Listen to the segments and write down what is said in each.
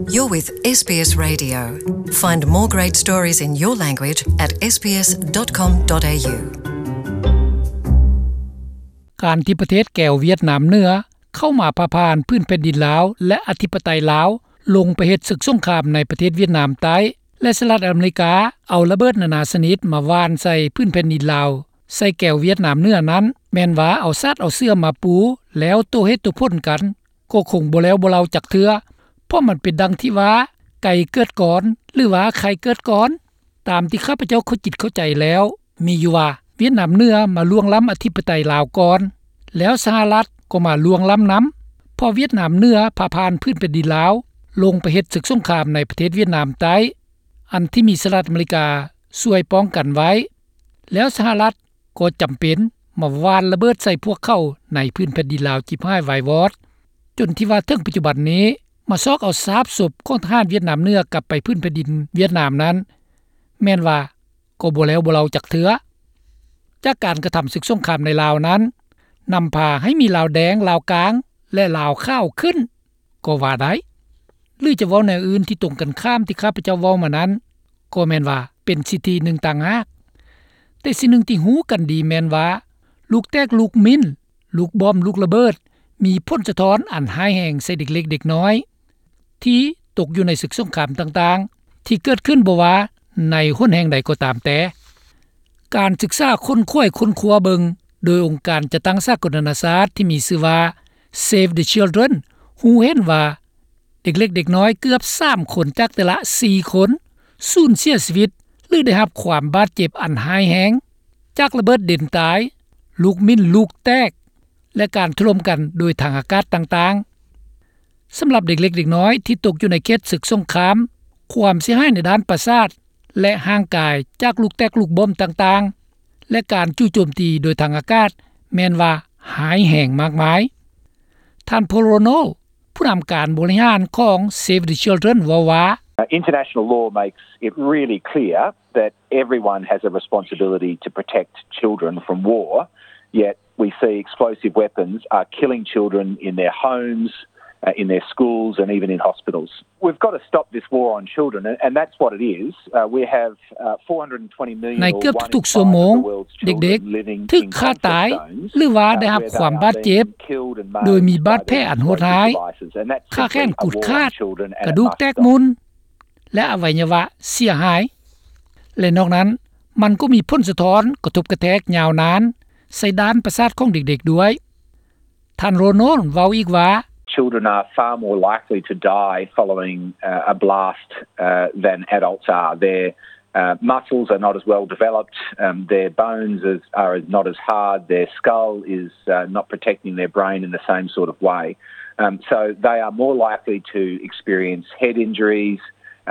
You're with S B S Radio. Find more great stories in your language at S B S dot com dot A U. ການທີ່ປະເທດແກວຫວຽດນາມເໜືອເຂົ້າມາພາບຜ່ານພື້ນແຜ່ນດິນລາວ ແລະ ອະທິປະໄຕລາວ ລົງໄປເຮັດສຶກສົງຄາມໃນປະເທດຫວຽດນາມໃຕ້ ແລະ ສະຫະລັດອາເມລິກາເອົາລະເບີດນານາຊະນິດມາຫວ່ານໃສ່ພື້ນແຜ່ນດິນລາວ ໃສ່ແກວຫວຽດນາມເໜືອນັ້ນ ແມ່ນວ່າເອົາສາດເອົາເສື່ອມາປູ ແລ້ວໂຕ້ເຫດໂຕ້ຜົນກັນ ກໍຄົງບໍ່ແລ້ວບໍ່ເລົາຈັກເທື່ອ ເພາະມັນເປັນດັ່ງທີ່ວ່າ ໄກ່ເກີດກ່ອນ ຫຼືວ່າໄຂ່ເກີດກ່ອນ. ຕາມທີ່ຂ້າພະເຈົ້າເຂົ້າຈິດເຂົ້າໃຈແລ້ວ ມີຢູ່ວ່າ ຫວຽດນາມເໜືອມາລ່ວງລ້ຳອະທິປະໄຕລາວກ່ອນ ແລ້ວສະຫະລັດກໍມາລ່ວງລ້ຳນຳ ເພາະຫວຽດນາມເໜືອພາຜ່ານພື້ນແຜ່ນດິນລາວ ລົງໄປເຮັດສຶກສົງຄາມໃນປະເທດຫວຽດນາມໃຕ້ ອັນທີ່ມີສະຫະລັດອາເມລິກາຊ່ວຍປ້ອງກັນໄວ້ ແລ້ວສະຫະລັດ ກໍຈຳເປັນມາຫວ່ານລະເບີດໃສ່ພວກເຂົາໃນພື້ນແຜ່ນດິນລາວຈິບຫາຍວາຍວອດ ຈົນທີ່ວ່າເຖິງປັດຈຸບັນນີ້ ມາຊອກເອົາຊາບສົບຂອງທະຫານຫວຽດນາມເໜືອກັບໄປພື້ນແຜ່ນດິນຫວຽດນາມນັ້ນ ແມ່ນວ່າກໍບໍ່ແລ້ວບໍ່ເລົາຈັກເທື່ອ. ຈາກການກະທຳສຶກສົງຄາມໃນລາວນັ້ນ ນຳພາໃຫ້ມີລາວແດງ, ລາວກາງ ແລະ ລາວຂາວຂຶ້ນ ກໍວ່າໄດ້ ຫຼືຈະເວົ້າແນວອື່ນທີ່ຕົງກັນຂ້າມທີ່ຂ້າພະເຈົ້າເວົ້າມານັ້ນ ກໍແມ່ນວ່າເປັນສິດທິໜຶ່ງຕ່າງຫາກ. ແຕ່ສິ່ງໜຶ່ງທີ່ຮູ້ກັນດີແມ່ນວ່າ ລູກແຕກລູກມິ້ນ, ລູກບອມ, ລູກລະເບີດ ມີຜົນສະທ້ອນອັນຮ້າຍແຮງໃສ່ເດັກເລັກເດັກນ້ອຍ ທີ່ຕົກຢູ່ໃນສຶກສົງຄາມຕ່າງໆ ທີ່ເກີດຂຶ້ນບໍ່ວ່າໃນຫົນແຫ່ງໃດກໍຕາມແຕ່. ການສຶກສາຄົ້ນຄວ້າຄົ້ນຄວ້າເບິ່ງ ໂດຍອົງການຈັດຕັ້ງສາກົນນານາຊາດທີ່ມີຊື່ວ່າ Save the Children ຮູ້ເຫັນວ່າ ເດັກເລັກເດັກນ້ອຍເກືອບສາມຄົນຈາກແຕ່ລະສີ່ຄົນ ສູນເສຍຊີວິດ ຫຼື ໄດ້ຮັບຄວາມບາດເຈັບອັນຮ້າຍແຮງ ຈາກລະເບີດເດັ່ນຕາຍ, ລູກມິ້ນລູກແຕກ ແລະ ການຖະຫຼົ່ມກັນໂດຍທາງອາກາດຕ່າງໆ. ສຳລັບເດັກເລັກເດັກນ້ອຍທີ່ຕົກຢູ່ໃນເຂດສຶກສົງຄາມ, ຄວາມເສຍຫາຍໃນດ້ານປະສາດ ແລະ ຮ່າງກາຍຈາກລູກແຕກລູກບອມຕ່າງໆ ແລະ ການຈູ່ໂຈມຕີໂດຍທາງອາກາດ ແມ່ນວ່າຮ້າຍແຮງມາກມາຍ. ທ່ານ Paul Ronald ຜູ້ນຳການບໍລິຫານຂອງ Save the Children ເວົ້າວ່າ International law makes it really clear that everyone has a responsibility to protect children from war, yet we see explosive weapons are killing children in their homes, uh, in their schools and even in hospitals. We've got to stop this war on children, and, and that's what it is. Uh, we have, uh, four hundred and twenty million ໃນເກືອບທຸກໆຊົ່ວໂມງ ເດັກໆຖືກຂ້າຕາຍ ຫຼືວ່າໄດ້ຮັບຄວາມບາດເຈັບ ໂດຍມີບາດແຜອັນໂຫດຮ້າຍ, ຂາແຂນຂູດຂາດ, ກະດູກແຕກໝຸ່ນ ແລະ ອະໄວຍະວະເສຍຫາຍ ແລະ ນອກນັ້ນ ມັນກໍມີຜົນສະທ້ອນກະທົບກະແທກຍາວນານໃສ່ດ້ານປະສາດຂອງເດັກໆດ້ວຍ. ທ່ານ Ronald ເວົ້າອີກວ່າ Children are far more likely to die following, uh, a blast, uh, than adults are. Their, uh, muscles are not as well developed, um, their bones is, are not as hard, their skull is, uh, not protecting their brain in the same sort of way. Um, so they are more likely to experience head injuries,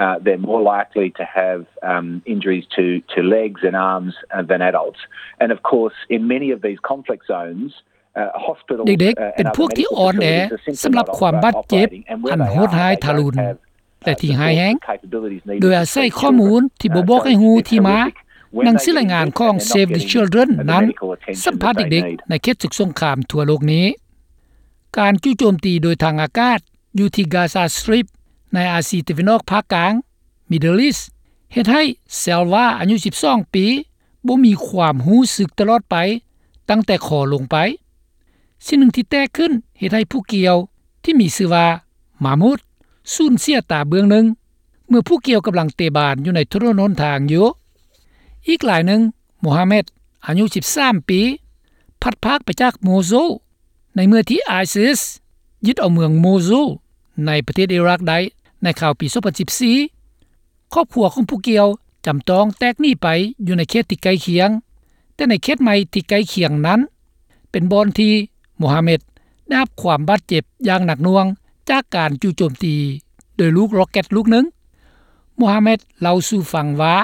uh, they're more likely to have, um, injuries to, to legs and arms, uh, than adults. And of course, in many of these conflict zones, ເດັກໆເປັນພວກທີ່ອ່ອນແອສຳລັບຄວາມບາດເຈັບອັນໂຫດຮ້າຍທາລຸນ ແລະ ທີ່ຮ້າຍແຮງ ໂດຍອາໄສຂໍ້ມູນທີ່ບໍ່ບອກໃຫ້ຮູ້ທີ່ມາ. ໜັງສືລາຍງານຂອງ Save the Children ນັ້ນສຳພາດເດັກໆໃນເຂດສົງຄາມທົ່ວໂລກນີ້. ການຈູ່ໂຈມຕີໂດຍທາງອາກາດຢູ່ທີ່ Gaza Strip ໃນອາຊີຕາເວັນອອກພາກກາງ Middle East ເຮັດໃຫ້ Selva ອາຍຸສິບສອງປີ ບໍ່ມີຄວາມຮູ້ສຶກຕະຫຼອດໄປ ຕັ້ງແຕ່ຄໍລົງໄປ. ສິ່ງໜຶ່ງທີ່ແຕກຂຶ້ນເຮັດໃຫ້ຜູ້ກ່ຽວທີ່ມີຊື່ວ່າ Mahmoud ສູນເສຍຕາເບື້ອງໜຶ່ງ ເມື່ອຜູ້ກ່ຽວກຳລັງເຕະບານຢູ່ໃນຖະໜົນຫົນທາງຢູ່. ອີກລາຍໜຶ່ງ Mohammed ອາຍຸສິບສາມປີ ພັດພາກໄປຈາກ Mosul ໃນເມື່ອທີ່ ISIS ຍຶດເອົາເມືອງ Mosul ໃນປະເທດອີຣັກໄດ້ໃນຄາວປີສອງພັນສິບສີ່. ຄອບຄົວຂອງຜູ້ກ່ຽວຈຳຕ້ອງແຕກໜີໄປຢູ່ໃນເຂດທີ່ໃກ້ຄຽງ, ແຕ່ໃນເຂດໃໝ່ທີ່ໃກ້ຄຽງນັ້ນ ເປັນບ່ອນທີ່ Mohammed ໄດ້ຮັບຄວາມບາດເຈັບຢ່າງໜັກໜ່ວງຈາກການຈູ່ໂຈມຕີໂດຍລູກຣັອກເກັດລູກໜຶ່ງ. Mohammed ເລົ່າສູ່ຟັງວ່າ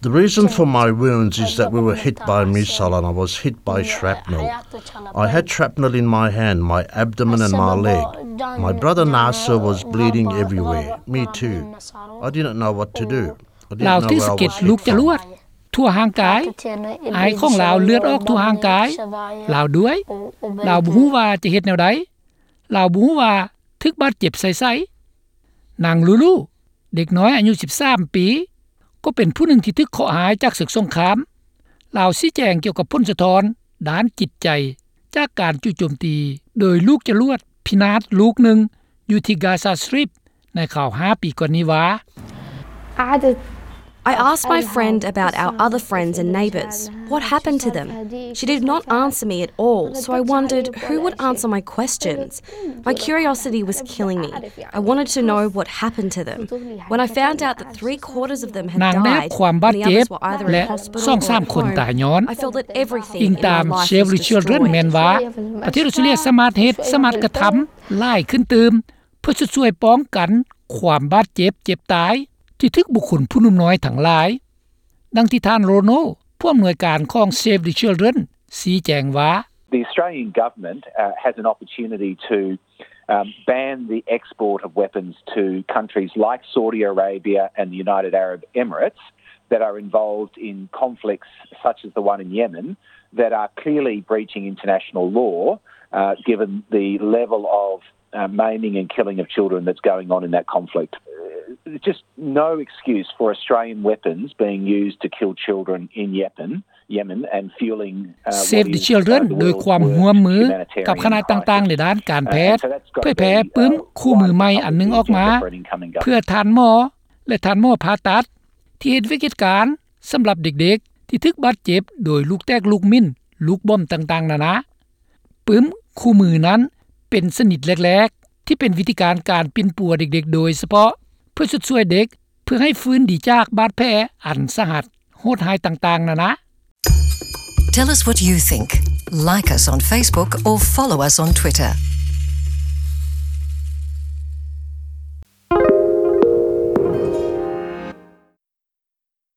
The reason for my wounds is that we were hit by a missile and I was hit by shrapnel. I had shrapnel in my hand, my abdomen and my leg. My brother Nasser was bleeding everywhere. Me too. I didn't know what to do. I didn't know where I was hit from. ລາວຖືກສະເກັດລູກຈະລວດທົ່ວຮ່າງກາຍ, ອ້າຍຂອງລາວເລືອດອອກທົ່ວຮ່າງກາຍລາວດ້ວຍ. ລາວບໍ່ຮູ້ວ່າຈະເຮັດແນວໃດ. ລາວບໍ່ຮູ້ວ່າຖືກບາດເຈັບໃສ່ໃສ. ນາງລູລູ ເດັກນ້ອຍອາຍຸສິບສາມປີ ກໍເປັນຜູ້ໜຶ່ງທີ່ຖືກເຄາະຮ້າຍຈາກເສິກສົງຄາມ. ລາວຊີ້ແຈງກ່ຽວກັບຜົນສະທ້ອນດ້ານຈິດໃຈຈາກການຈູ່ໂຈມຕີໂດຍລູກຈະຫຼວດພິນາດລູກໜຶ່ງຢູ່ທີ່ກາຊາສຕຣິບໃນຄາວຫ້າປີກ່ອນນີ້ວ່າ I asked my friend about our other friends and neighbours. What happened to them? She did not answer me at all, so I wondered who would answer my questions. My curiosity was killing me. I wanted to know what happened to them. When I found out that three quarters of them had died and the others were either in hospital or at home, I felt that everything in my life was destroyed. ປະເທດອອສເຕຣເລັຍສາມາດເຮັດ ສາມາດກະທຳຫຼາຍຂຶ້ນຕື່ມ ເພື່ອຊຸດຊ່ວຍປ້ອງກັນຄວາມບາດເຈັບເຈັບຕາຍທີ່ຖືກບຸກຄົນຜູ້ໜຸ່ມນ້ອຍທັງຫຼາຍ. ດັ່ງທີ່ທ່ານ Rono, ຜູ້ອຳນວຍການຂອງ Save the Children ຊີ້ແຈງວ່າ The Australian government has an opportunity to ban the export of weapons to countries like Saudi Arabia and the United Arab Emirates that are involved in conflicts such as the one in Yemen that are clearly breaching international law, given the level of maiming and killing of children that's going on in that conflict. There's just no excuse for Australian weapons being used to kill children in Yemen, Yemen and fueling Save the Children ໂດຍຄວາມຮ່ວມມືກັບຄະນະຕ່າງໆໃນດ້ານການແພດ ເຜີຍແຜ່ປຶ້ມຄູ່ມືໃໝ່ອັນໜຶ່ງອອກມາ ເພື່ອທ່ານໝໍ ແລະທ່ານໝໍຜ່າຕັດ ທີ່ເຮັດວຽກເຮັດການສຳລັບເດັກໆທີ່ຖືກບາດເຈັບໂດຍລູກແຕກລູກມິ້ນ ລູກບອມຕ່າງໆນານາ. ປຶ້ມຄູ່ມືນັ້ນເປັນຊະນິດແລກໆ ທີ່ເປັນວິທີການການປິ່ນປົວເດັກໆໂດຍສະເພາະ ເພື່ອຊຸດຊ່ວຍເດັກ ເພື່ອໃຫ້ຟື້ນດີຈາກບາດແຜອັນສາຫັດໂຫດຮ້າຍຕ່າງໆນານາ. Tell us what you think. Like us on Facebook or follow us on Twitter.